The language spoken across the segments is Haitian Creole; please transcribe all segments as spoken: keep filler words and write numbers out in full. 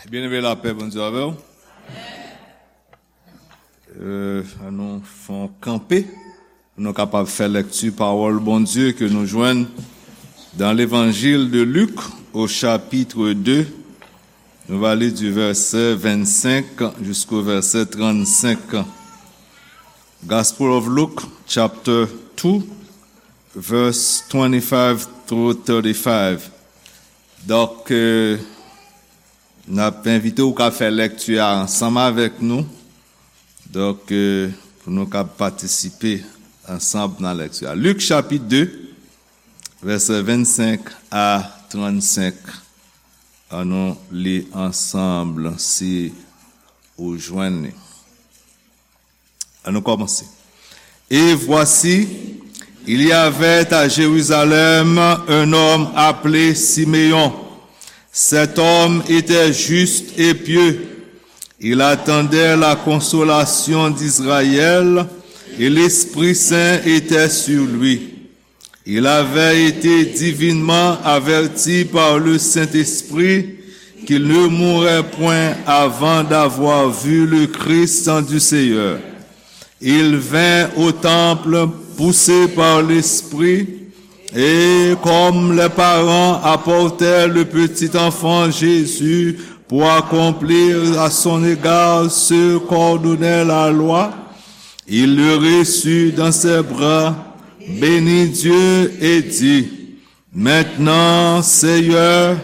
Byeneme, lapè Bondye avè w. Euh, ann nou fè yon kanpe pou nou kapab fè lèkti pawòl Bondye ke nou jwenn dans l'Évangile de Luc au chapitre deux. Nou va li du verset vingt-cinq jusqu'au verset trente-cinq. Gospel of Luke, chapter two, verse twenty-five through thirty-five. Donk, euh, n ap envite w ka fè lèkti a ansanm avèk nou. Donk, euh, pou nou ka patisipe ansanm nan lèkti a. Lik chapit de, vèsè vennsenk a trannsenk. Ann nou li ansanm si ou jwenn li. Ann nou kòmanse. Et voici, il y avait à Jérusalem un homme appelé Siméon. Cet homme était juste et pieux. Il attendait la consolation d'Israël, et l'Esprit Saint était sur lui. Il avait été divinement averti par le Saint-Esprit qu'il ne mourrait point avant d'avoir vu le Christ du Seigneur. Il vint au temple poussé par l'Esprit, et comme les parents apportaient le petit enfant Jésus pour accomplir à son égard ce qu'ordonnait la loi, il le reçut dans ses bras, bénit Dieu et dit, Maintenant, Seigneur,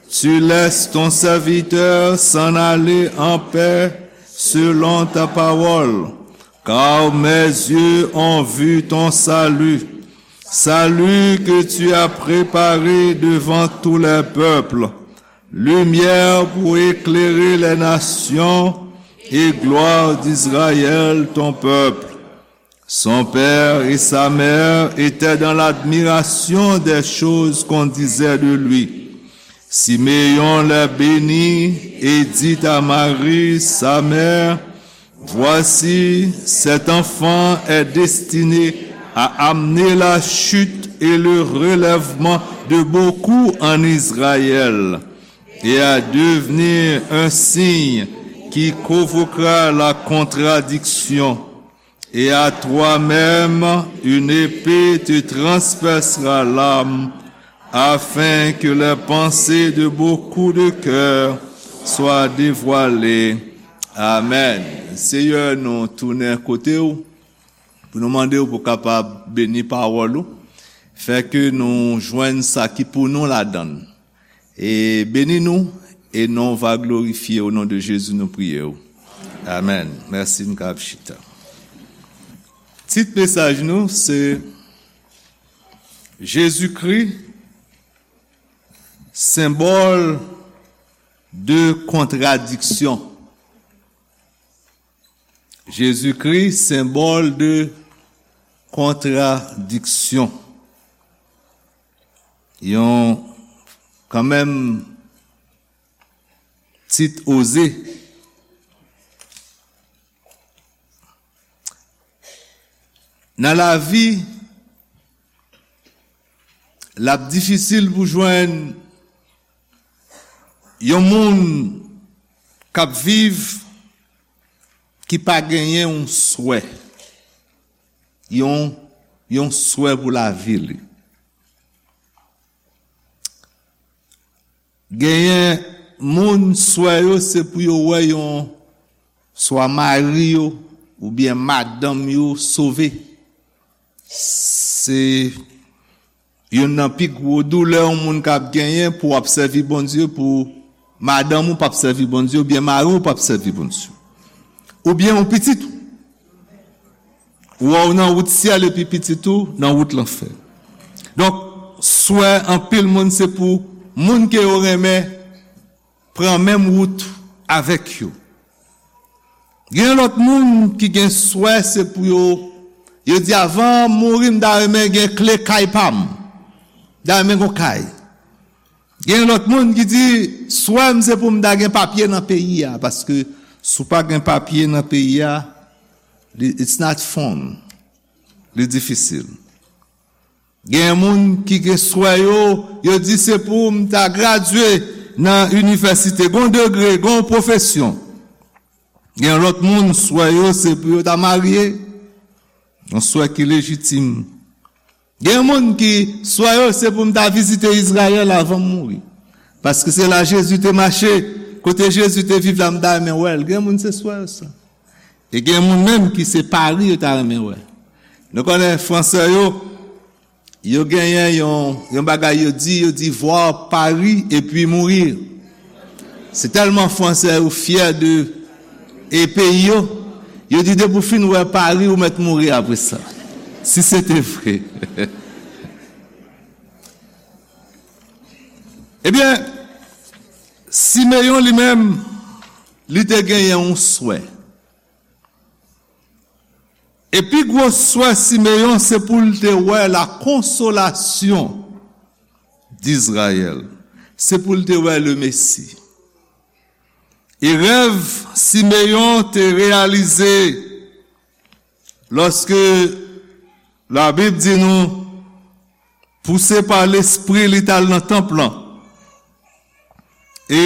tu laisses ton serviteur s'en aller en paix selon ta parole, car mes yeux ont vu ton salut, salut que tu as préparé devant tous les peuples, lumière pour éclairer les nations et gloire d'Israël ton peuple. Son père et sa mère étaient dans l'admiration des choses qu'on disait de lui. Siméon les bénit et dit à Marie, sa mère, Voici, cet enfant est destiné à amener la chute et le relèvement de beaucoup en Israël, et à devenir un signe qui provoquera la contradiction. Et à toi-même, une épée te transpercera l'âme, afin que les pensées de beaucoup de cœurs soient dévoilées. Amen. Seyè, nou tounen kote w pou nou mande w pou kapab beni pawòl ou. Fè ke nou jwenn sa ki pou nou ladan l. E beni nou, e non w va glorifye, o non de Jezi nou priye w. Amen. Mèsi, n ka ap chita. Tit mesaj nou se Jezikri, senbòl de kontradiksyon. Jezikri, senbòl de kontradiksyon. Yon, kanmenm, tit oze. Nan lavi, l ap difisil pou jwenn yon moun k ap viv ki pa genyen yon swè, yon, yon swè pou lavi li. Genyen moun, swè yo se pou yo wè yon, swa mari yo oubyen madanm yo sove. Se youn nan pi gwo doulè yon moun ka ap genyen, pou w ap sèvi Bondye, pou madanm ou p ap sèvi Bondye, oubyen mari w p ap sèvi Bondye. Oubyen yon pitit ou. Ou wè w nan wout syèl epi pitit ou nan wout lanfè. Donk, swè anpil moun se pou moun ke yo renmen pran menm wout avèk yo. Gen lòt moun ki gen swè se pou yo, yo di, avan m mouri, m ta renmen gen kle kay pa m. M ta renmen gen yon kay. Gen lòt moun ki di, swè m se pou m ta gen papye nan peyi a, paske si w pa gen papye nan peyi a, li, it's not fun. Li difisil. Gen moun ki gen swè yo, yo di se pou m ta gradye, nan inivèsite, gen yon degre, gen yon pwofesyon. Gen lòt moun, swè yo, se pou yo ta marye, yon swè ki lejitim. Gen moun ki, swè yo, se pou m ta vizite Izrayèl avan m mouri. Paske se la Jezi te mache, kote Jezi te viv la, m ta renmen wè l. Gen moun, se swè yo sa. E gen moun menm ki se Pari yo ta renmen wè. Nou konnen Fransè yo, yo genyen yon, yon bagay yo di, yo di voir Paris et puis mourir. Se tèlman Fransè yo fyè de e peyi yo, yo di depi w fin wè Pari, ou mèt mouri apre sa. Si se te vre. Ebyen, Simeyon li menm, li te genyen yon swè. E pi gwo swè Simeyon, se pou l te wè la konsolasyon d'Izrayèl. Se pou l te wè le Mesi. E rèv Simeyon te reyalize lòske Labib di nou, pouse pa Lespri, li t al nan tanp lan. E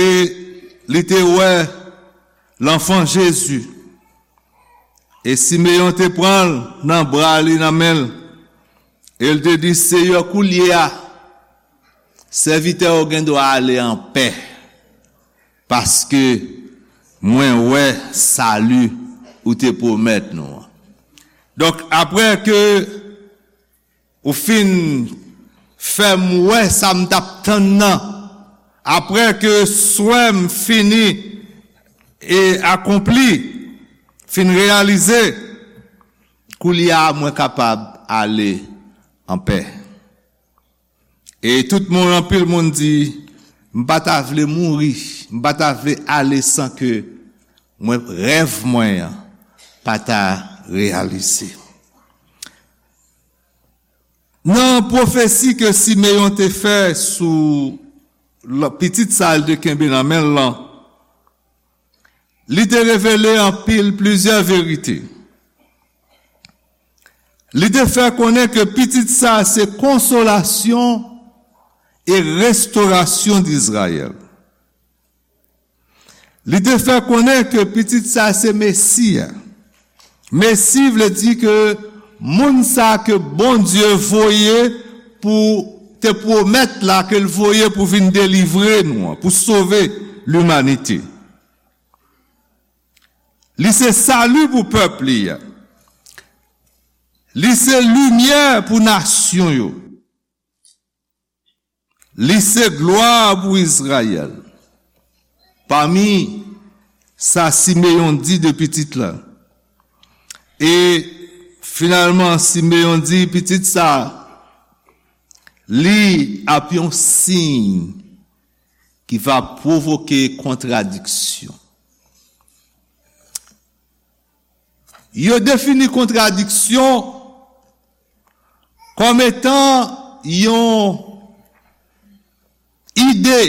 li te wè lanfan Jezi. E Simeyon te pran l nan bra li, nan men l. E l te di, Seyè, koulye a, sèvitè w gen dwa ale anpè, paske mwen wè sali ou te pwomèt nou an. Donk, apre ke ou fin fè m wè sa m t ap tann nan, apre ke swè m fini e akonpli, fin reyalize, koulye a mwen kapab ale anpè. E tout moun, anpil moun di, m pa ta vle mouri, m pa ta vle ale san ke mwen, rèv mwen an pa ta reyalize. Nan pwofesi ke Simeyon te fè sou l-, pitit sa l te kenbe nan men l lan, li te revele anpil, plizyè verite. Li te fè konnen ke pitit sa se konsolasyon e restorasyon d'Izrayèl. Li te fè konnen ke pitit sa se Mesi a. Mesi vle di ke moun sa ke Bondye voye pou te pwomèt la, ke l voye pou vin delivre nou an, pou sove limanite. Li se sali pou pèp li a. Li se limyè pou nasyon yo. Li se glwa pou Izrayèl. Pami sa Simeyon di de pitit la. E finalman, Simeyon di pitit sa, li ap yon siy ki va pwovoke kontradiksyon. Yo defini kontradiksyon kòm etan yon ide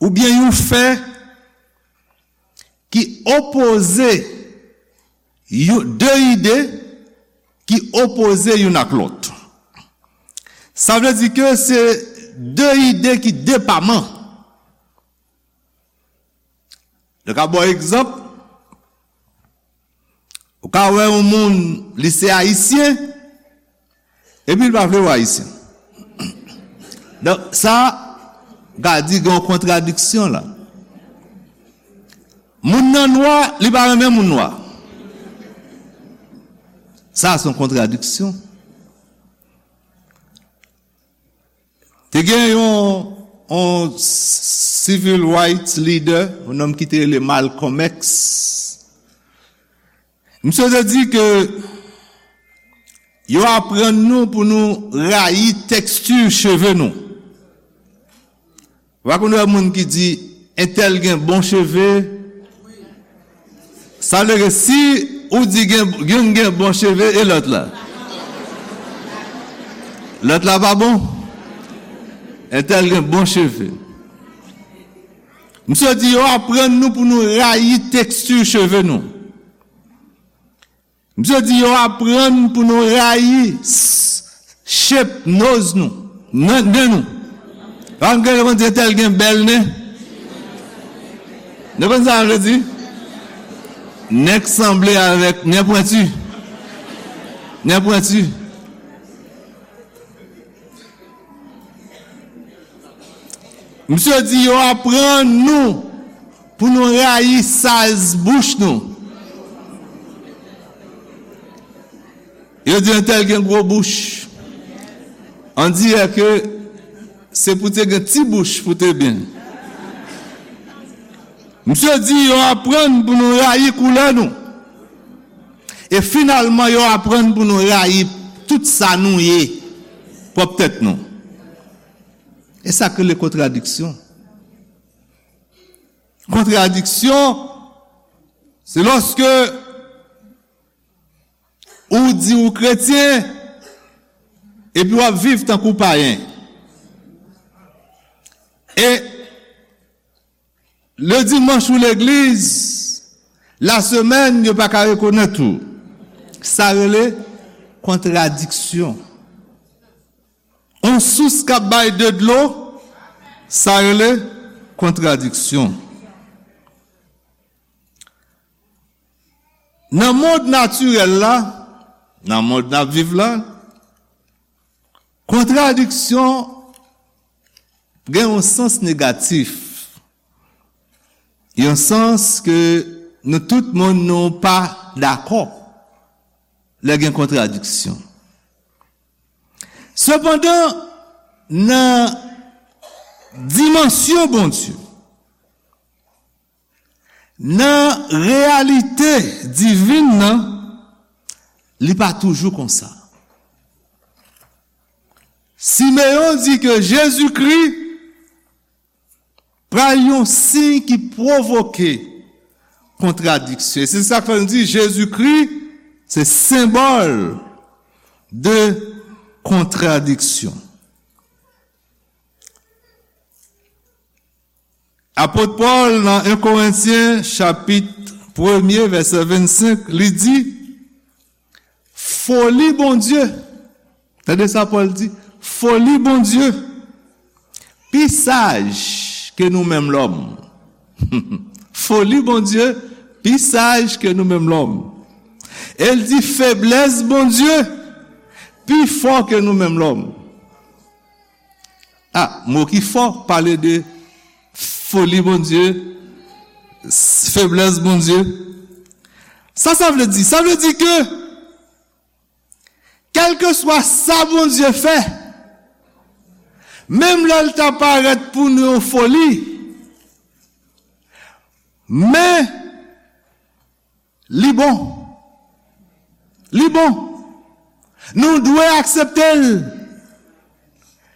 oubyen yon fè ki opoze, yon, de ide ki opoze youn ak lòt. Sa vle di ke se de ide ki depaman. Nou ka ba w egzanp, ou ka wè yon moun, li se ayisyen, epi l pa vle wè ayisyen. Donk, sa, ou ka di gen yon kontradiksyon la. Moun nan nwa, li pa renmen moun nwa. Sa, se yon kontradiksyon. Te gen yon, yon civil rights leader, yon nonm ki te rele Malcolm X. Misye te di ke yo aprann nou pou nou rayi teksti cheve nou. Ou pa konn wè moun ki di, entèl gen bon cheve. Sa vle ke si ou di gen, youn gen bon cheve, e lòt la? Lòt la pa bon? Entèl gen bon cheve. Misye di yo aprann nou pou nou rayi teksti cheve nou. Misye di yo aprann pou nou rayi s-, shape nose nou, nen, nen nou. Pa m gen konn di entèl gen bèl nen. Nou konn sa m vle di? Nen k sanble avèk nen pwenti. Nen pwenti. Misye di yo aprann nou pou nou rayi saz bouch nou. Yo di entèl gen gwo bouch. On dirè ke se pou te gen ti bouch pou te byen. Misye di yo aprann pou nou rayi koulè nou. E finalman, yo aprann pou nou rayi tout sa nou ye, pwòp tèt nou. E sa k rele kontradiksyon. Kontradiksyon, se lòske ou di ou kretyen, epi w ap viv tankou payen. E le dimanch ou legliz, lasemèn, yo pa ka rekonèt ou. Sa rele kontradiksyon. On sous k ap bay de dlo, sa rele kontradiksyon. Nan mond natirèl la, nan mond n ap viv la, kontradiksyon gen yon sans negatif. Yon sans ke nou tout moun nou pa dakò lè gen kontradiksyon. Sepandan, nan dimansyon Bondye, nan reyalite divin nan, li pa toujou konsa. Simeyon di ke Jezikri pral yon siy ki pwovoke kontradiksyon. E se sa k fè nou di Jezikri se senbòl de kontradiksyon. Apot Pòl nan en Korentyen chapit premye vèsè vennsenk, li di, foli Bondye. Tande sa Pòl di, foli Bondye pi saj ke nou menm lòm. Foli Bondye pi saj ke nou menm lòm. E l di feblès Bondye pi fò ke nou menm lòm. Ah, mo ki fò, pale de foli Bondye, feblès Bondye. Sa sa vle di? Sa vle di ke kèlkeswa sa Bondye fè, menm lè l ta parèt pou nou yon foli, men li bon. Li bon. Nou dwe aksepte l.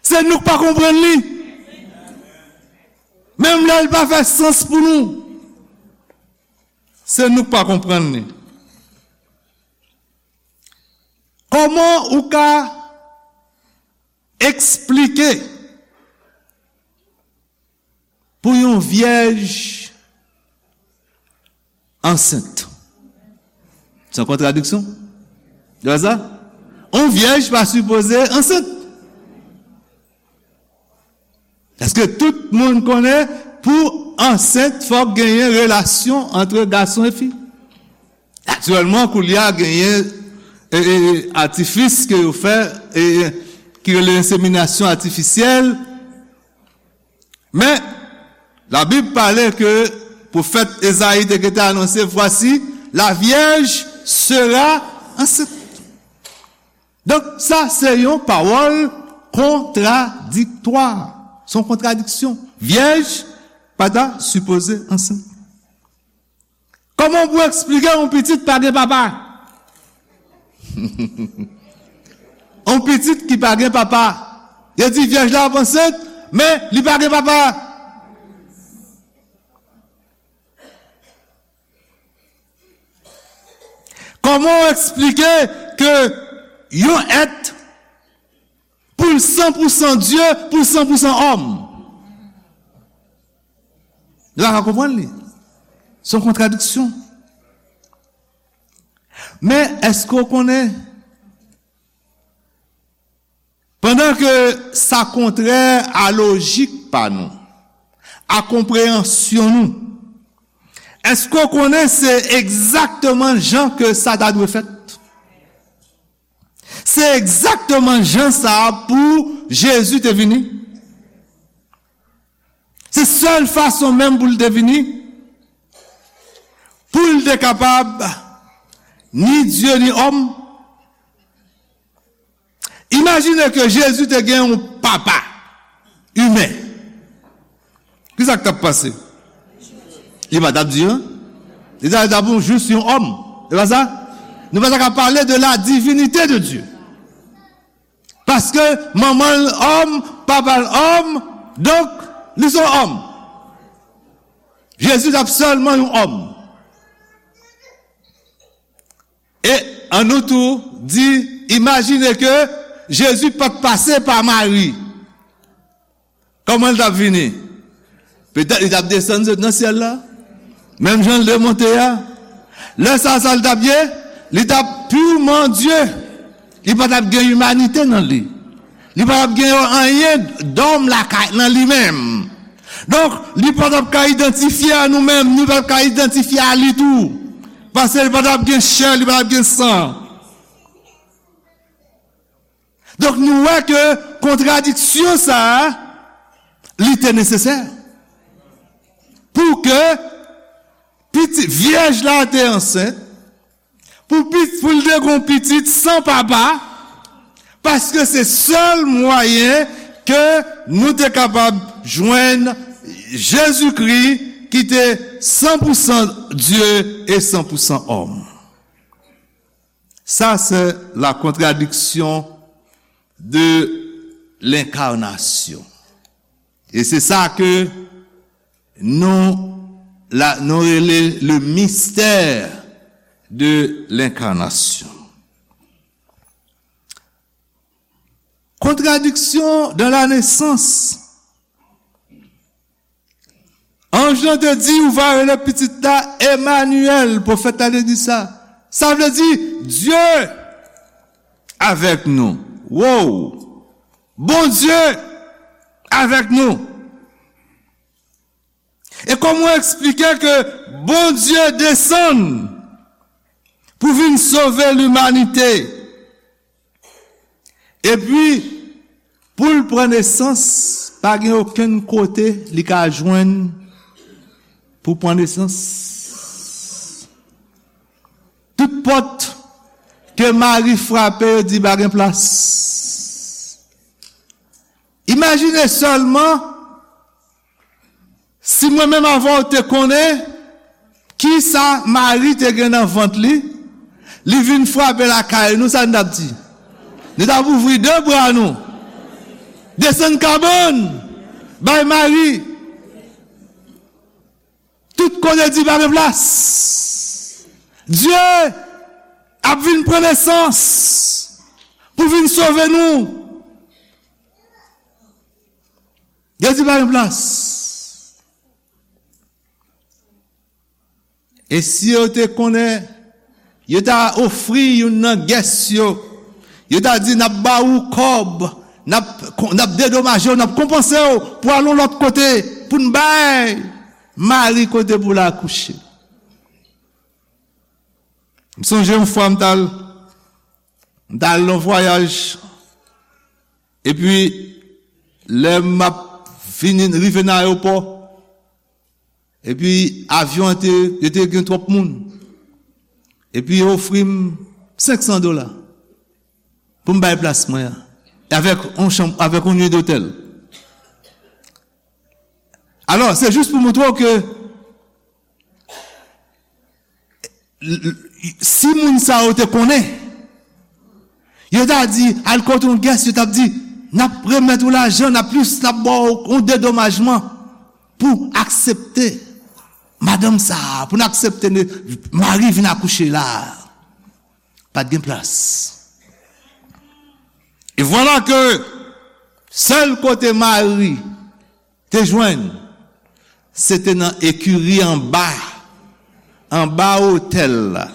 Se nou k pa konprann li. Menm lè l pa fè sans pou nou, se nou k pa konprann li. Kòman ou ka eksplike pou yon vyèj ansent? Se yon kontradiksyon. Ou wè sa? Yon vyèj pa sipoze ansent. Paske tout moun konnen pou ansent, fòk genyen relasyon ant gason e fi. Aktyèlman, koulye a genyen e, e, e, atifis ke yo fè, e, e, ki rele enseminasyon atifisyèl. Men, Labib pale ke pwofèt Ezayi te gentan anonse, voici, la vierge sera enceinte. Donk, sa se yon pawòl kontradiktwa. Se yon kontradiksyon. Vyèj pa ta sipoze ansent. Kòman pou eksplike yon pitit pa gen papa? Yon pitit ki pa gen papa. Yo di vyèj la ap ansent, men li pa gen papa. Kòman w eksplike ke yon èt pou l san pou san Dye, pou l san pou san òm? Nou pa ka konprann li. Se yon kontradiksyon. Men, èske w konnen, pandan ke sa kontrè a lojik pa nou, a konpreyansyon nou. Èske w konnen se egzakteman jan ke sa ta dwe fèt? Se egzakteman jan sa a pou Jezi te vini. Se sèl fason menm pou l te vini, pou l te kapab ni Dye ni òm. Imajine ke Jezi te gen yon papa imen. Kisa k t ap pase? Li pa t ap di, en? Li t ap, li t ap jis yon òm. Se pa sa? Nou pa ta ka pale de la divinite de Dye. Paske manman l òm, papa l òm, donk, li se yon òm. Jezi t ap sèlman yon òm. E ann nou tou di, imajine ke Jezi pa t pase pa Mari. Kòman l t ap vini? Petèt li t ap desann sot nan syèl la. Menm jan l te monte a. Lè sa, sa l t ap ye? Li t ap pirman Dye. Li pa t ap gen imanite nan li. Li pa t ap gen anyen dòm lakay nan li menm. Donk, li pa t ap ka idantifye a nou menm, li pa t ap ka idantifye a li tou. Paske li pa t ap gen chè, li pa t ap gen san. Donk, nou wè ke kontradiksyon sa a, li te nesesè. Pou ke piti, vyèj la te ansent, pou pit-, pou l te gon pitit san papa, paske se sèl mwayen ke nou te kapab jwenn Jezikri ki te san pou san Dye e san pou san òm. Ça, c'est la contradiction de l'incarnation. E se sa ke nou, la, nou rele le mystère de l'incarnation. Contradiction dans la naissance. Anj lan te di, ou va rele pitit la Emmanuel, pwofèt la te di sa. Sa vle di, Dye avèk nou. Wow! Bondye avèk nou. E kòman w eksplike ke Bondye desann pou vin sove limanite? Epi, pou l pran nesans, pa gen okenn kote li ka jwenn pou pran nesans. Tout pòt ke Mari frape, yo di pa gen plas. Imajine sèlman, si mwen menm avè w te konnen kisa Mari te gen nan vant li, li vin frape lakay nou, sa n t ap di? Nou t ap ouvri de bra nou, desann kabann, bay Mari. Tout kote di pa gen plas. Dye ap vin pran nesans pou vin sove nou. Yo di pa gen plas. E si yo te konnen, yo ta ofri youn nan gès yo. Yo ta di, n ap ba ou kòb, n ap, n ap dedomaje w, n ap konpanse w pou al yon lòt kote, pou n bay Mari kote pou l akouche. M sonje yon fwa m t al, m t al nan vwayaj, epi lè m ap vini, rive nan ayewopò, epi avyon an te, yo te gen twòp moun, epi yo ofri m senk san dola pou m bay plas mwen an, avèk yon chanm, avèk yon nuit d'hôtel. Alò, se jis pou montre w ke l-, l-, si moun sa yo te konnen, yo ta di, al kote yon gès, yo t ap di, n ap remèt ou lajan, n ap plis, n ap ba w yon dedomajman pou aksepte madanm sa a, pou n aksepte ne-, Mari vin akouche la a. Pa t gen plas. E vwala ke sèl kote Mari te jwenn, se te nan ekiri anba, anba otèl la.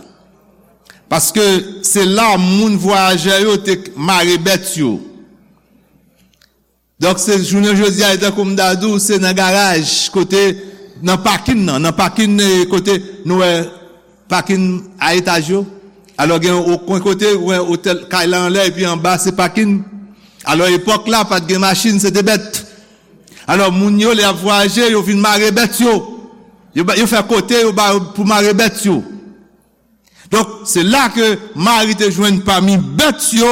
Paske se la moun vwayajè yo te mare bèt yo. Donk, se jounen jodi a, e tankou m ta di w, se nan garaj, kote, nan pakin nan, nan pakin, eh, kote nou wè pakin a etaj yo. Alò, gen yon kwen kote, ou wè otèl, kay la anlè, epi anba, se pakin. Alò, epòk la, pa t gen machin, se te bèt. Alò, moun yo, lè y ap vwayaje, yo vin mare bèt yo. Yo, ba- yo fè kote yo ba yo pou mare bèt yo. Donk, se la ke Mari te jwenn pami bèt yo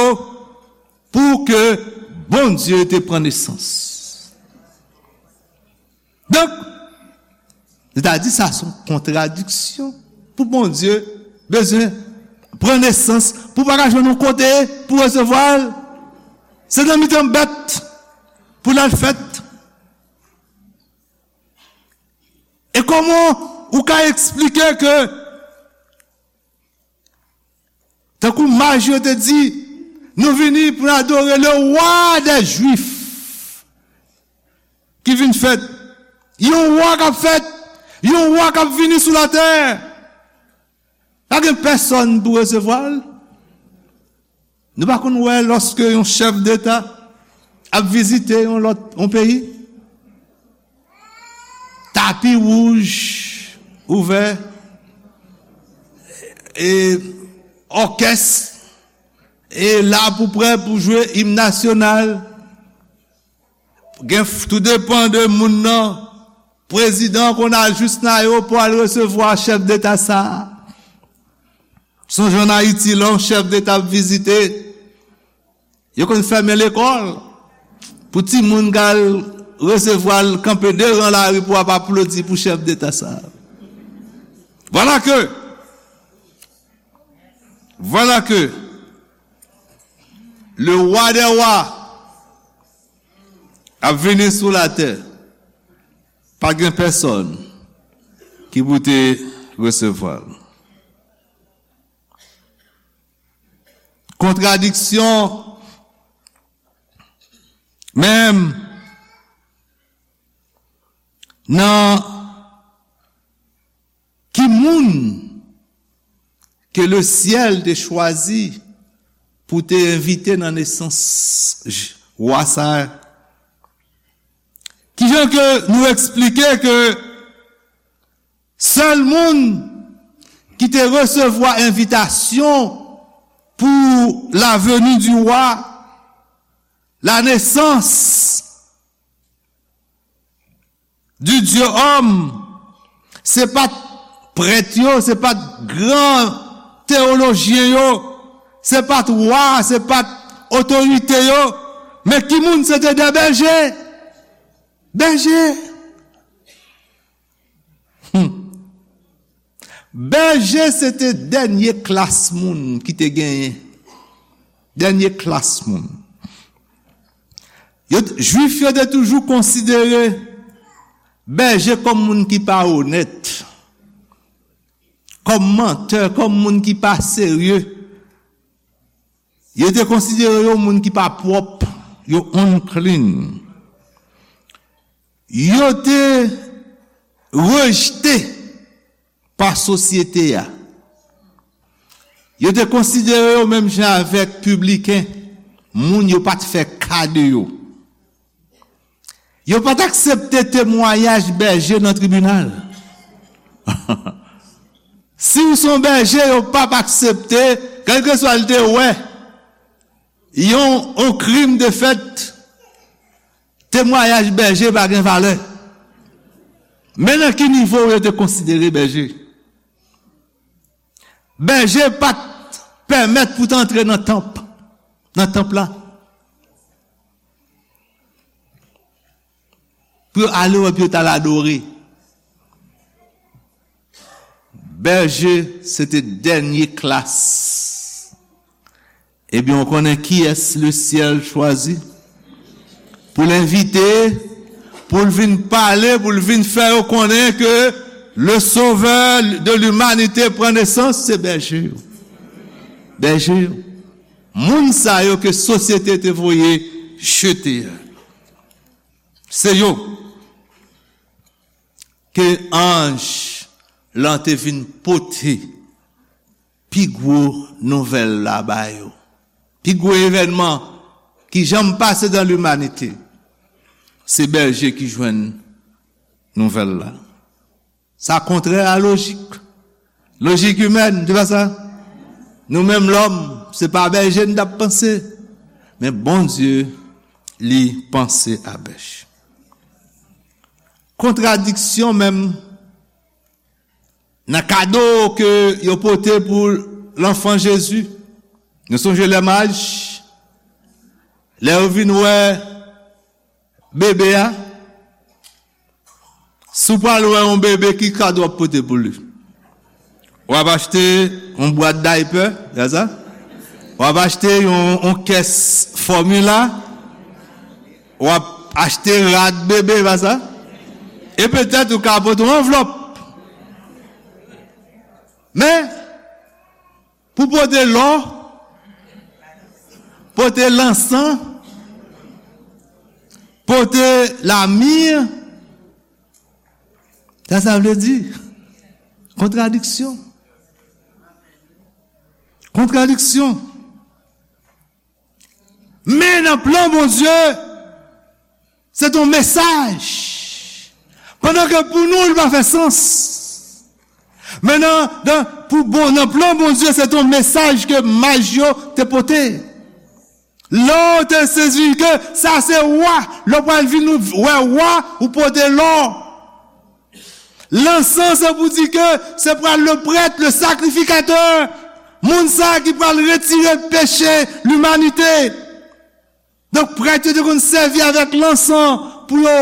pou ke Bondye te pran nesans. Donk, sètadi sa se yon kontradiksyon pou Bondye bezwen pran nesans, pou pa ka jwenn yon kote pou resevwa l. Se nan mitan bèt pou l al fèt. E kòman ou ka eksplike ke, tankou maj yo te di, nou vini pou n adore le roi des Juifs ki vin fèt. Yon wa k ap fèt, yon wa k ap vini sou latè. Pa gen pèsonn pou resevwa l. Nou pa konn wè lòske yon chèf deta ap vizite yon lòt, yon peyi? Tapi wouj ouvè, e òkès e la pou prè pou jwe im nasyonal. Gen f- tou depan de moun nan. Prezidan konn al jis nan ayewopò al resevwa chèf deta sa a. Sonje ann Ayiti, lè yon chèf deta ap vizite, yo konn fèmen lekòl pou timoun k al resevwa l kanpe de ran lari pou ap aplodi pou chèf deta sa a. Voilà que, voilà que le roi des rois ap vini sou latè, pa gen pèsonn ki pou te resevwa l. Kontradiksyon menm nan ki moun ke le syèl te chwazi pou te envite nan nesans j- wa sa a. Kijan ke nou eksplike ke sèl moun ki te resevwa envitasyon pour la venue du roi, la naissance du Dieu homme, se pa t prèt yo, se pa t gran teyolojyen yo, se pa t wa, se pa t otorite yo, men ki moun? Se te de bèje. Bèje. Hmm. Bèje se te dènye klas moun ki te genyen. Dènye klas moun. Yo t- Jwif yo te toujou konsidere bèje kòm moun ki pa onèt, kòm mantè, kòm moun ki pa serye. Yo te konsidere yo moun ki pa pwòp, yo unclean. Yo te rejte pa sosyete a. Yo te konsidere yo menm jan avèk pibliken, moun yo pa t fè ka de yo. Yo pa t aksepte temwayaj bèje nan tribinal. Si w se yon bèje, yo p ap aksepte, kèlkeswa l te wè yon, yon krim te fèt, temwayaj bèje pa gen valè. Men nan ki nivo yo te konsidere bèje? Bèje pa t pèmèt pou te antre nan tanp, nan tanp la, pou yo ale wè, pou yo t al adore. Bèje, se te dènye klas. Ebyen, w konnen kiyès lesyèl chwazi pou l envite, pou l vin pale, pou l vin fè yo konnen ke le Sauveur de l'humanité pran nesans? Se bèje yo. Bèje yo. Moun sa yo ke sosyete te voye jete a. Se yo ke anj lan te vin pote pi gwo nouvèl la ba yo. Pi gwo evènman ki janm pase dan limanite. Se bèje ki jwenn nouvèl la. Sa kontrè a lojik. Lojik imèn, se pa sa? Nou menm lòm, se pa bèje n t ap panse. Men Bondye, li panse a bèj. Kontradiksyon menm nan kado ke yo pote pou lanfan Jezi. Nou sonje lè maj, lè yo vin wè bebe a, si w pral wè yon bebe, ki kado w ap pote pou li? W ap achte yon bwat daypè, se sa? W ap achte yon, yon kès fòmila, w ap achte rad bebe, se pa sa? E petèt ou ka pote yon anvlòp. Men, pou pote lò, pote lansan, pote lami, sa sa vle di? Kontradiksyon. Kontradiksyon. Men nan plan Bondye, se yon mesaj. Pandan ke pou nou, li pa fè sans. Men nan, nan, pou bon, nan plan Bondye, se yon mesaj ke maj yo te pote. Lò w te sezi ke sa se wa, lè w pral vin wè wa, ou pote lò. Lansan, se pou di ke se pral le prèt, le sakrifikatè, moun sa ki pral retire peche limanite. Donk, prèt yo te konn sèvi avèk lansan pou yo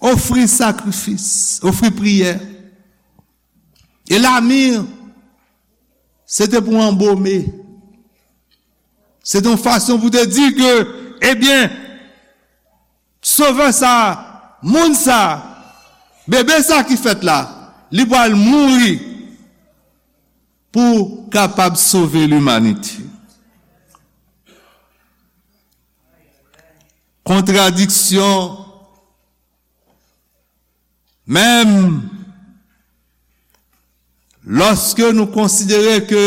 ofri sakrifis, ofri priyè. E lami, se te pou anbome. Se te yon fason pou te di ke, ebyen, Sovè sa, moun sa, bebe sa ki fèt la, li pral mouri pou kapab sove limanite. Kontradiksyon, menm lòske nou konsidere ke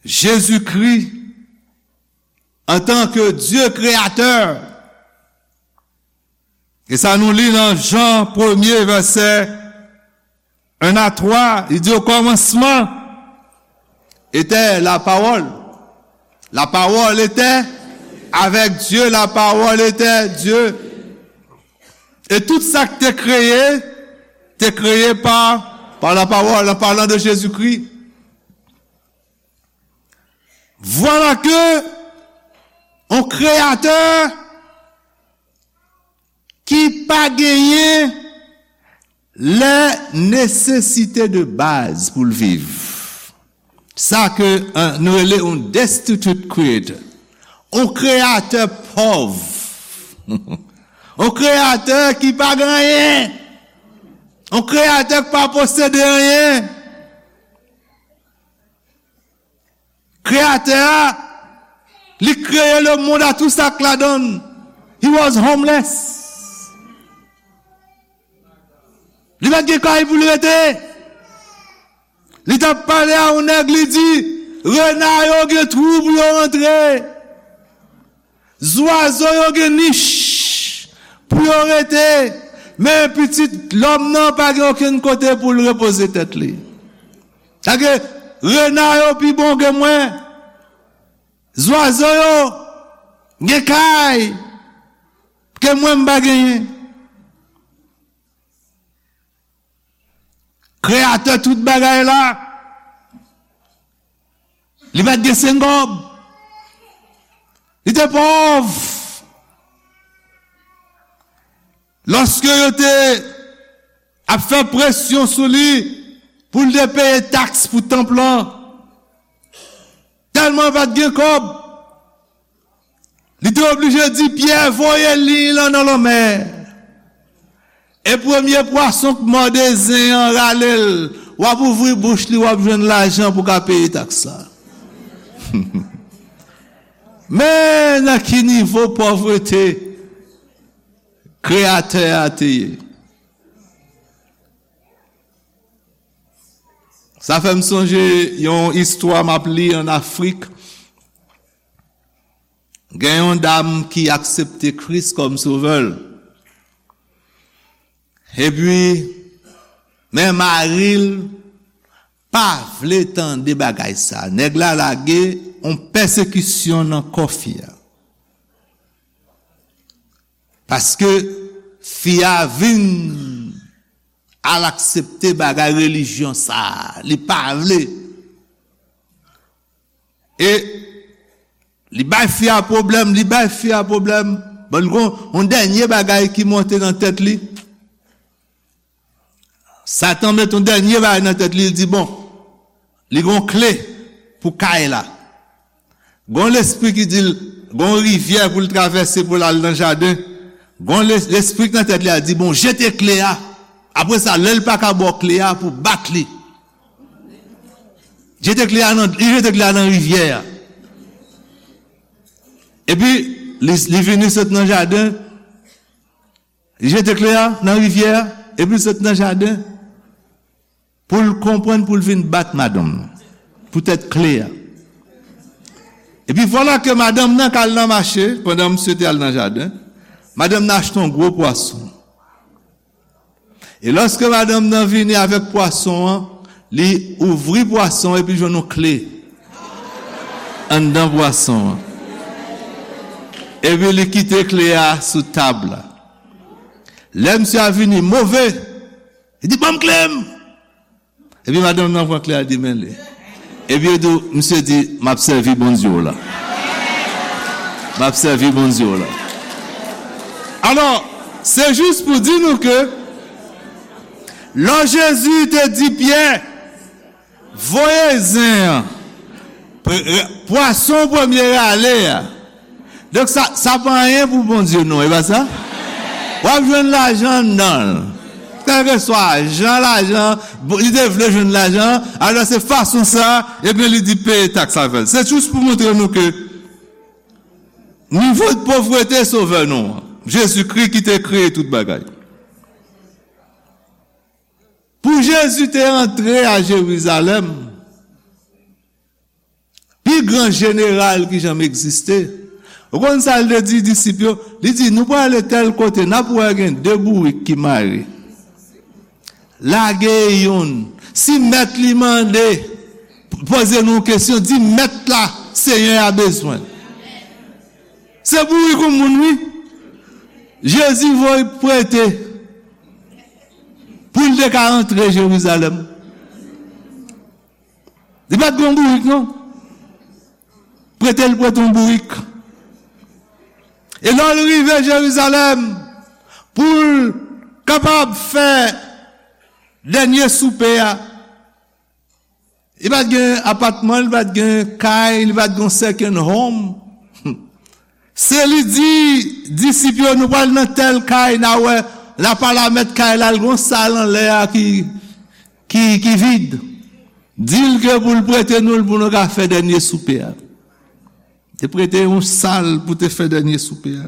Jezikri, antanke Dye Kreyatè, e sa nou li nan Jan premye, vèsè en a twa, li di, o kòmansman etè la pawòl. La pawòl etè avèk Dye, la pawòl etè Dye. E tout sa ki te kreye, te kreye pa, pa la pawòl, an palan de Jezikri. Vwala ke yon kreyatè ki pa genyen lè nesesite de baz pou l viv. Sa ke, eh, nou rele yon destitute creator. Yon kreyatè pòv. Yon kreyatè ki pa gen anyen. Yon kreyatè ki pa posede anyen. Kreyatè a, li kreye lemonn a tou sa k ladan l. He was homeless. Li pa t gen kay pou l rete. Li t ap pale a yon nèg, li di, rena yo gen twou pou yo rantre. Zwazo yo gen nich pou yo rete, men pitit lòm nan pa gen okenn kote pou l repoze tèt li. Sa ke rena yo pi bon ke mwen, zwazo yo gen kay ke mwen m pa genyen. Kreyatè tout bagay la, li pa t gen senk kòb. Li te pòv. Lòske yo te ap fè presyon sou li pou l te peye taks pou tanp lan, tèlman l pa t gen kòb, li te oblije di Pyè voye liy lan nan lanmè. E premye pwason k mòde zen an rale l, w ap ouvri bouch li, w ap jwenn lajan pou ka peye taks la. Men nan ki nivo pòvrete Kreyatè a te ye. Sa fè m sonje yon istwa m ap li ann Afrik. Gen yon dam ki aksepte Kris kòm sovè l. Epi, men mari l pa vle tande bagay sa. Nèg la lage yon pèsekisyon nan kò fi a. Paske fi a vin al aksepte bagay relijyon sa. Li pa vle. E li bay fi a pwoblèm, li bay fi a pwoblèm. Bon, li gon yon dènye bagay ki monte nan tèt li. Satan met yon dènye bagay nan tèt li, li di, bon, li gon kle pou kay la. Gon lespri ki di l, gon rivyè pou l travèse pou l al nan jaden. Gon le-, lespri ki nan tèt li a di, bon, jete kle a. Apre sa, lè l pa ka ba w kle a, pou bat li. Jete kle a nan, li jete kle a nan rivyè a. Epi, li, li vini sot nan jaden, li jete kle a nan rivyè a, epi l sot nan jaden pou l konprann, pou l vin bat madanm nan, poutèt kle a. Epi vwala ke madanm nan k al nan mache, pandan misye te al nan jaden, madanm nan achte yon gwo pwason. E lòske madanm nan vini avèk pwason an, li ouvri pwason epi jwenn yon kle anndan pwason an. Epi li kite kle a sou tab la. Lè misye a vini move, li di, ban m kle m! Epi madanm nan pran kle a, li di, men li. Epi yo di, misye di, m ap sèvi Bondye w la. M ap sèvi Bondye w la. Alò, se jis pou di nou ke lè Jezi te di Pyè, voye zen an, pre-, pwason premye rale a, donk, sa, sa pa anyen pou Bondye, non, e pa sa? W ap jwenn lajan anndan l. Kèlkeswa jan lajan, bon, li te vle jwenn lajan, alò se fason sa, ebyen, li di peye taks avè l. Se jis pou montre nou ke nivo de povrete Sovè nou an, Jezikri ki te kreye tout bagay. Pou Jezi te antre a Jerizalèm, pi gran jeneral ki janm egziste. Ou konn sa l te di disip yo? Li di, nou prale tèl kote, n ap wè gen de bourik ki mare. Lage youn. Si mèt li mande, poze nou yon kesyon, di mèt la, Senyè a bezwen. Se bourik yon moun, wi. Jezi voye prete pou l te ka antre Jerizalèm. Li pa t gen yon bourik, non. Prete l prete yon bourik. E lè l rive Jerizalèm, pou l kapab fè dènye soupe a, li pa t gen apatman, li pa t gen kay, li pa t gen yon second home. Se li di disip yo, nou pral nan tèl kay, n a wè, n a pale a mèt kay la, l gen yon sal anlè a ki, ki, ki vid. Di l ke pou l prete nou l pou nou ka fè dènye soupe a. Te prete yon sal pou te fè dènye soupe a.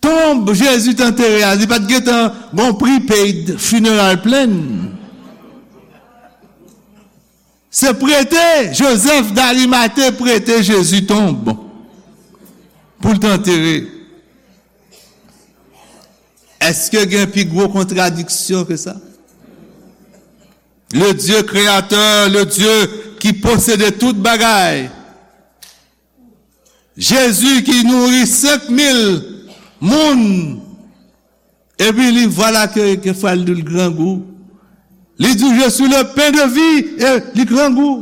Tonb Jezi t antere a, li pa t gentan gon prepaid funeral plan. Se prete, Jozèf Darimate prete Jezi tonb pou l t antere. Èske gen pi gwo kontradiksyon ke sa? Le Dieu créateur, le Dieu qui possédait tout bagay, Jezi ki nouri senk mil moun, epi li, vwala ke, ke fwa l di l grangou. Li di, je suis le pain de vie, e li grangou.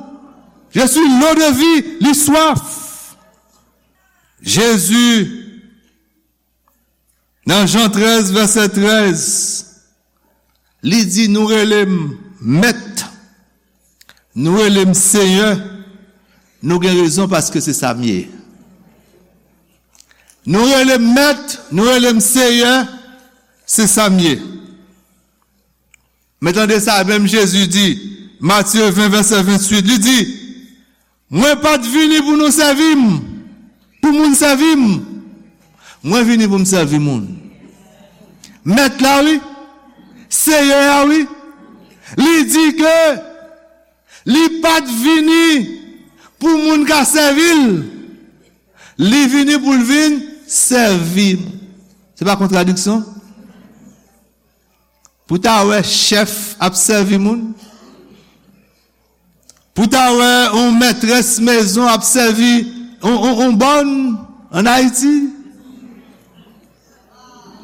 Je suis l'eau de vie, li swaf. Jezi, nan Jan trèz, vèsè trèz, li di, nou rele m Mèt, nou rele m Seyè, nou gen rezon paske se sa m ye. Nou rele m Mèt, nou rele m Seyè, se sa m ye. Men tande sa menm Jezi di, Matye ven, vèsè venntuit, li di, mwen pa t vini pou nou sèvi m, pou moun sèvi m. Mwen vini pou m sèvi moun. Mèt la, wi. Seyè a, wi. Li di ke li pa t vini pou moun ka sèvi l. Li vini pou l vin sèvi. Se pa kontradiksyon? Pou ta wè chèf ap sèvi moun? Pou ta wè yon mètrès mezon ap sèvi yon, yon, yon bòn ann Ayiti?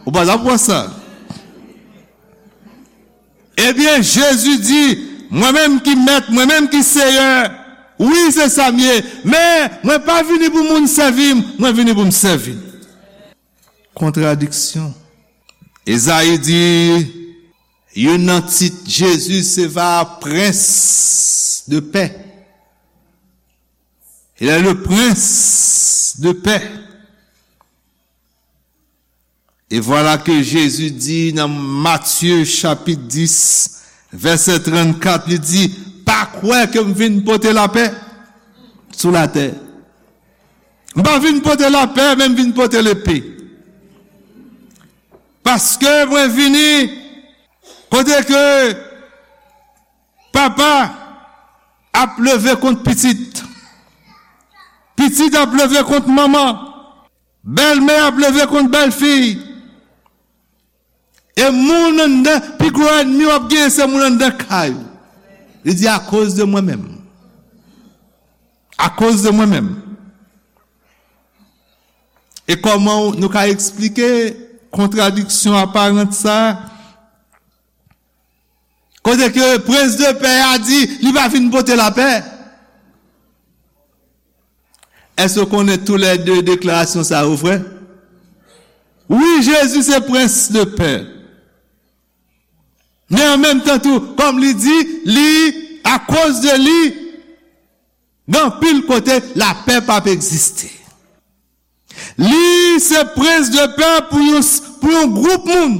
Ou pa t ap wè sa. Ebyen, Jezi di, mwen menm ki mèt, mwen menm ki seyè, wi, se sa m ye, men mwen pa vini pou moun sèvi m, mwen vini pou m sèvi. Kontradiksyon. Ezayi di, youn nan tit Jezi se va prens de pè. Il est le prince de paix. Et voilà que Jésus dit nan Matthieu chapitre dix, verset trente-quatre, li di, pa kwè ke m vin pote lapè sou latè. M pa vin pote lapè, men m vin pote lepe. Paske mwen vini kote ke papa ap leve kont pitit, pitit ap leve kont manman, bèlmè ap leve kont bèlfi. E moun anndan, pi gwo ènmi w ap genyen se moun anndan kay ou. Li di, akoz de mwen menm. Akoz de mwen menm. E kòman nou ka eksplike kontradiksyon aparan sa a? Kote ke prens de pè a di, li pa vin pote lapè. Èske w konnen toulède deklarasyon sa yo vrè? Wi, Jezi se prens de pè. Men an menm tan tou, kòm li di, li, akoz de li, gen anpil kote lapè p ap egziste. Li se prens de pè pou yon, pou yon gwoup moun,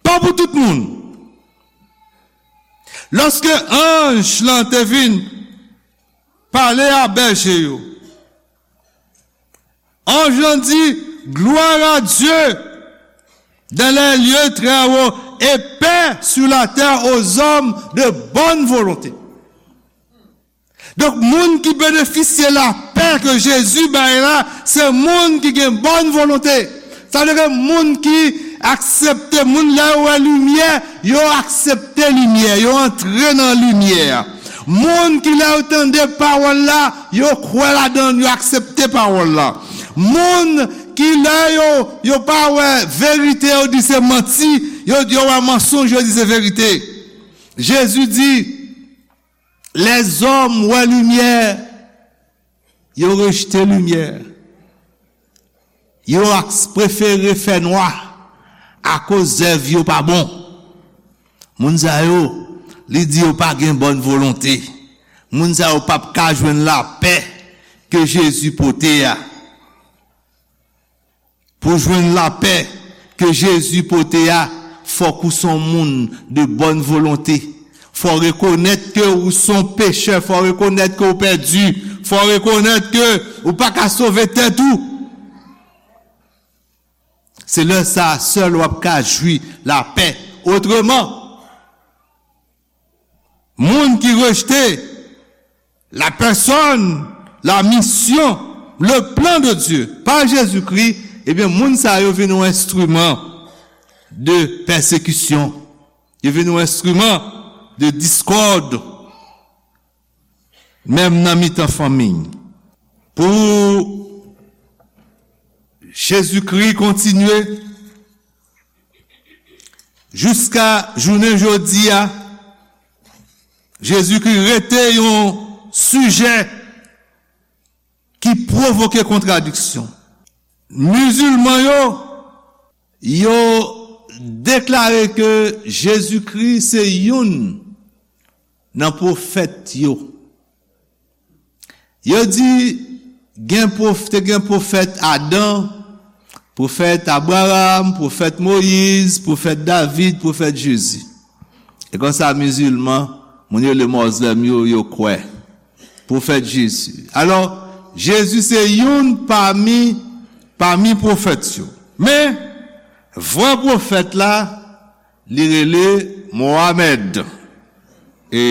pa pou tout moun. Lòske anj lan te vin pale a bèje yo, anj lan di, gloire à Dieu dans les lieux très hauts et paix sur la terre aux hommes de bonne volonté. Donk, moun ki benefisye lapè ke Jezi bay la, se moun ki gen bòn volonte. Sa vle di ke moun ki aksepte, moun lè yo wè limyè, yo aksepte limyè, yo antre nan limyè a. Moun ki lè yo tande pawòl la, yo kwè ladan l, yo aksepte pawòl la. Moun ki lè yo, yo pa wè verite, yo di se manti, yo, yo wè mansonj, yo di se verite. Jezi di, lèzòm wè limyè, yo rejte limyè. Yo ak, prefere fè nwa akoz zèv yo pa bon. Moun sa yo, li di yo pa gen bòn volonte. Moun sa yo p ap ka jwenn lapè ke Jezi pote a. Pou jwenn lapè ke Jezi pote a, fòk ou se yon moun de bòn volonte. Fò w rekonèt ke ou se yon pechè, fò w rekonèt ke w pèdi, fò w rekonèt ke ou pa ka sove tèt ou. Se lè sa a sèl w ap ka jwi lapè. Otreman, moun ki rejte la personne, la mission, le plan de Dieu pa Jezikri, ebyen, moun sa yo vin yon enstriman de pèsekisyon. Yo vin yon enstriman de diskòd, menm nan mitan fanmi. Pou Jezikri kontinye, jiska jounen jodi a, Jezikri rete yon sijè ki pwovoke kontradiksyon. Mizilman yo, yo deklare ke Jezikri se youn nan pwofèt yo. Yo di gen pwof-, te gen pwofèt Adan, pwofèt Abraram, pwofèt Moyiz, pwofèt David, pwofèt Jezi. E konsa, mizilman, moun yo rele mozlèm yo, yo kwè. Pwofèt Jezi. Alò, Jezi se youn pami, pami pwofèt yo. Men, vrè pwofèt la, li rele Mohamed. E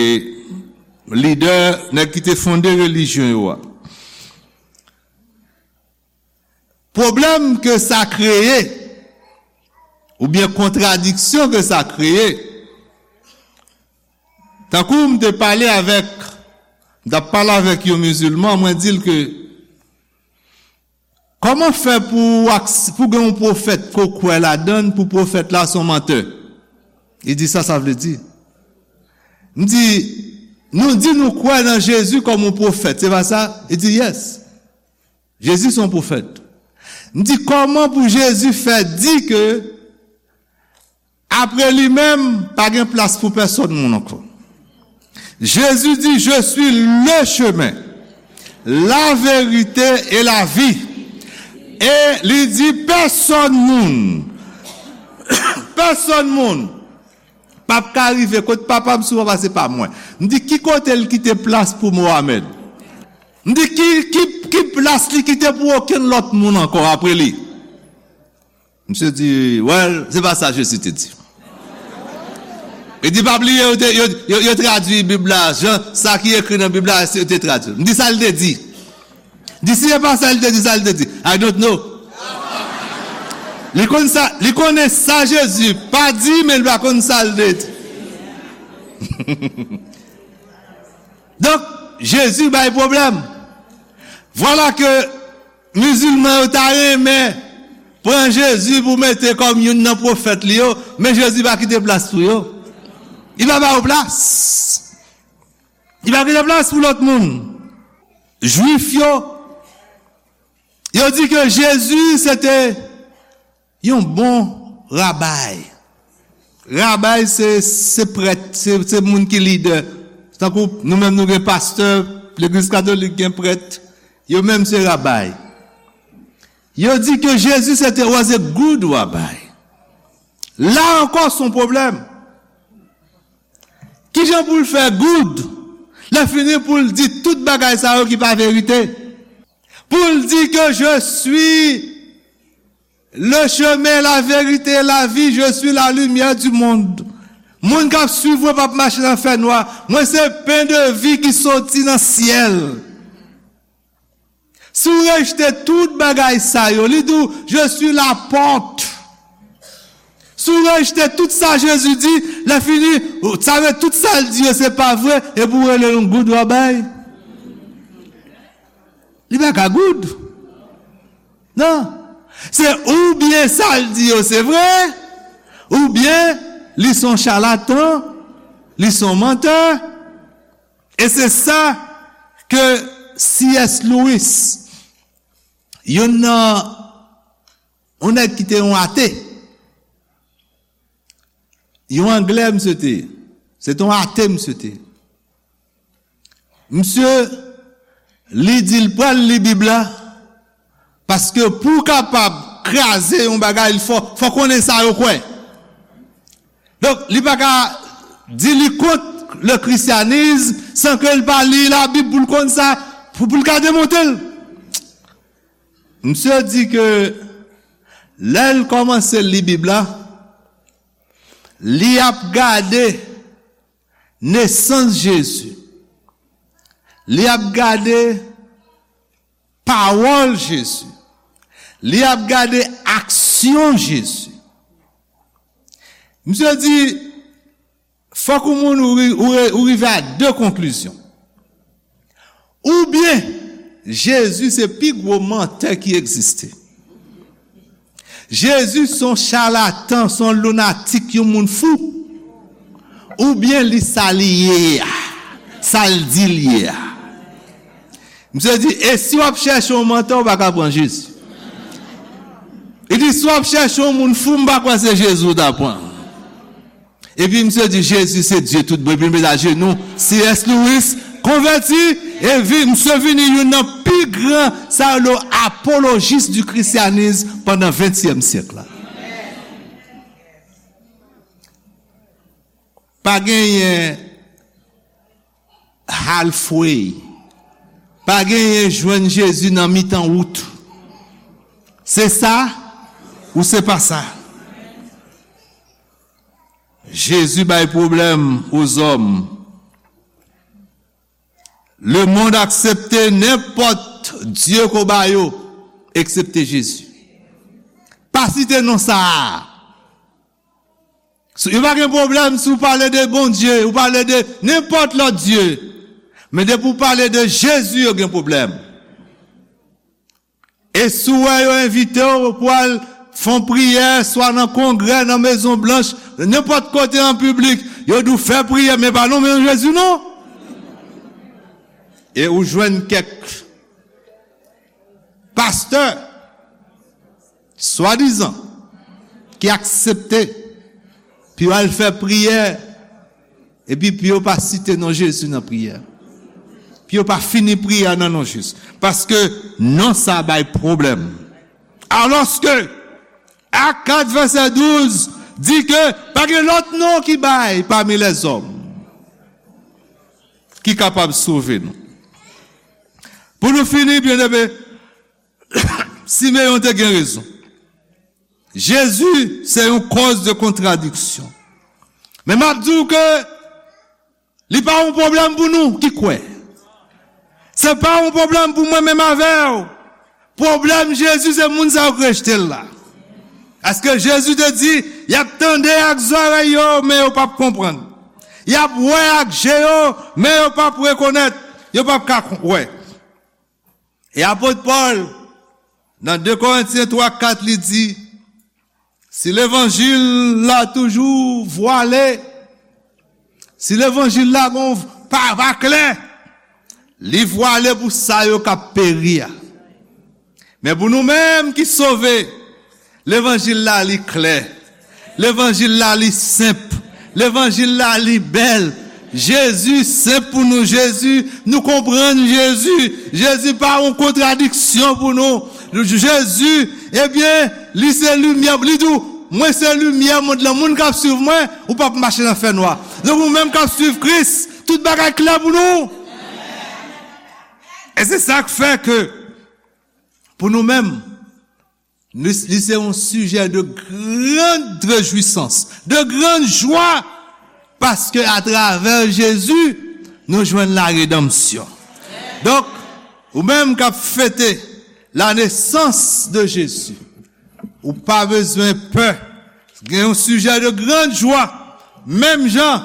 lidè, nèg ki te fonde relijyon yo a. pwoblèm ke sa kreye, oubyen kontradiksyon ke sa kreye, tankou m te pale avèk, m t ap pale avèk yon mizilman, mwen di l ke, kòman fè pou, pou gen yon pwofèt ke w kwè ladan l, pou pwofèt la se yon mantè? Li di, sa sa vle di? M di, nou di nou kwè nan Jezi kòm yon pwofèt, se pa sa? Li di, yes. Jezi se yon pwofèt. M di, kòman pou Jezi fè di ke apre li menm, pa gen plas pou pèsonn moun ankò? Jezi di, je suis le chemin, la vérité et la vie. E li di, pèsonn moun, pèsonn moun p ap ka rive kot Papa m si w pa pase pa mwen. M di, ki kote l kite plas pou Mohamed? M di, ki, ki, ki plas li kite pou okenn lòt moun ankò apre li? Misye di, well, se pa sa Jezi te di. Li di, pa bliye, yo, te, yo, yo, yo tradui Bib la, jan, sa ki ekri nan Bib la, yo te tradui. M di, sa l te di? Di, si se pa sa l te di, sa l te di? I don't know. Li konn sa, li konnen sa Jezi pa di, men li pa konn sa l te di. Donk, Jezi bay pwoblèm. Vwala ke mizilman yo ta renmen pran Jezi pou mete kòm youn nan pwofèt li yo, men Jezi pa kite plas pou yo. Li pa ba yo plas. Li pa kite plas pou lòt moun. Jwif yo, yo di ke Jezi se te yon bon rabay. Rabay se, se prèt, se, se moun ki lidè. Tankou nou menm nou gen pastè, legliz katolik gen prèt, yo menm se rabay. Yo di ke Jezi se te, was a good rabbi. La ankò se yon pwoblèm. Kijan pou l fè good? Lè fini pou l di tout bagay sa yo ki pa verite. Pou l di ke je suis le chemin, la vérité, la vie, je suis la lumière du monde. Moun k ap swiv mwen p ap mache nan fènwa. Mwen se pen de vi ki soti nan syèl. Si w rejte tout bagay sa yo, li di w, je suis la porte. Si w rejte tout sa Jezi di, lè fini, sa vle tout sa l di yo se pa vre, epi w rele yon good rabbi. Li pa ka good. Non. Se oubyen sa l di yo se vre, oubyen li se yon chalatan, li se yon mantè. E se sa ke C S Lewis, youn nan, yon nèg ki te yon ate, yon Anglè misye te ye, se te yon ate misye te ye. Misye, li di l pral li Bib la, paske pou w kapab kraze yon bagay, fò, fò konnen sa yo kwè. Donk, li pa ka di li kont le christianisme san ke l pa li Labib pou l konn sa, pou, pou l ka demonte l. Misye di ke lè l kòmanse li Bib la, li ap gade nesans Jezi. Li ap gade pawòl Jezi. Li ap gade aksyon Jezi. Misye di, fòk yon moun ou ri-, ou ri-, ou rive a de konklizyon. Oubyen, Jezi se pi gwo mantè ki egziste. Jezi se yon chalatan, se yon lunatik, yon moun fou. Oubyen li sa li ye a, sa l di l ye a. Misye di, e si w ap chèche yon mantè, ou pa ka pran Jezi. Li di, si w ap chèche yon moun fou, m pa kwè se Jezi w ta pran. Epi misye di, Jezi se Dye tout bon. Epi l met ajenou, C S Lewis konvèti, e vi-, misye vini youn nan pi gran, sa yo rele apolojis di krisyanis pandan ventyèm syèk la. Pa genyen halfway. Pa genyen jwenn Jezi nan mitan wout. Se sa ou se pa sa. Jezi bay pwoblèm aux hommes. Lemonn aksepte nenpòt dye ke w ba yo, eksepte Jezi. pa site non sa a. Si, yo pa gen pwoblèm si w pale de Bondye, ou pale de nenpòt lòt dye. Men depi w pale de Jezi, yo gen pwoblèm. E si w wè yo envite w pou al fè yon priyè, swa nan Kongrè, nan Mezon Blanch, nenpòt kote an piblik, yo di w fè priyè, men pa nonmen Jezi non. E ou jwenn kèk pastè, swadizan, ki aksepte pou yo al fè priyè, epi pou yo pa site non Jezi nan priyè. Pou yo pa fini priyè nan non Jezi. Paske non sa bay pwoblèm. Alòske, Ak kat vèsè douz di ke pa gen lòt non ki bay pami lèzòm ki kapab sove nou. Pou nou fini, byeneme, Simeyon te gen rezon. Jezi se yon kòz de kontradiksyon. Men m ap di w ke li pa yon pwoblèm pou nou ki kwè. Se pa yon pwoblèm pou mwen menm avè w. Pwoblèm Jezi se moun sa yo k rejte l la. Paske Jezi te di, y ap tande ak zòrèy yo, men yo p ap konprann. Y ap wè ak je yo, men yo p ap rekonèt. Yo p ap ka wè. E apot Pòl, nan de Korentyen twa kat, li di, si levanjil la toujou vwale, si levanjil la gon pa, pa klè, li vwale pou sa yo k ap peri a. Men pou nou menm ki sove, levanjil la li klè. Levanjil la li senp. Levanjil la li bèl. Jezi senp pou nou. Jezi, nou konprann Jezi. Jezi pa yon kontradiksyon pou nou. Jezi, ebyen, li se limyè. Li di w, mwen se limyè mond lan. Moun k ap swiv mwen, ou p ap mache nan fènwa. Donk ou menm k ap swiv Kris, tout bagay klè pou nou. E se sa k fè ke, pou nou menm, li, li se yon sijè de grande réjouissance, de grande joie, paske atravè Jezi, nou jwenn la redanmsyon. Donk, ou menm k ap fete la nesans de Jezi, ou pa bezwen pè. Gen yon sijè de grande joie. Menm jan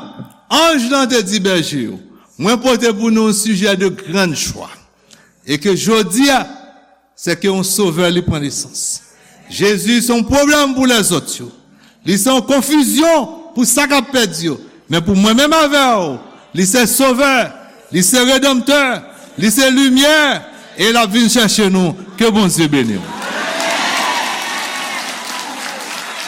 anj lan te di bèje yo, mwen pote pou nou yon sijè de grande joie. E ke jodi a, se ke yon sovè li pran nesans. Jezi se yon pwoblèm pou lèzòt yo. Li se yon konfizyon pou sa k ap pèdi yo. Men pou mwen menm avè w, li se sovè, li se redanmtè, li se limyè, e l ap vin chèche nou. Ke Bondye beni w.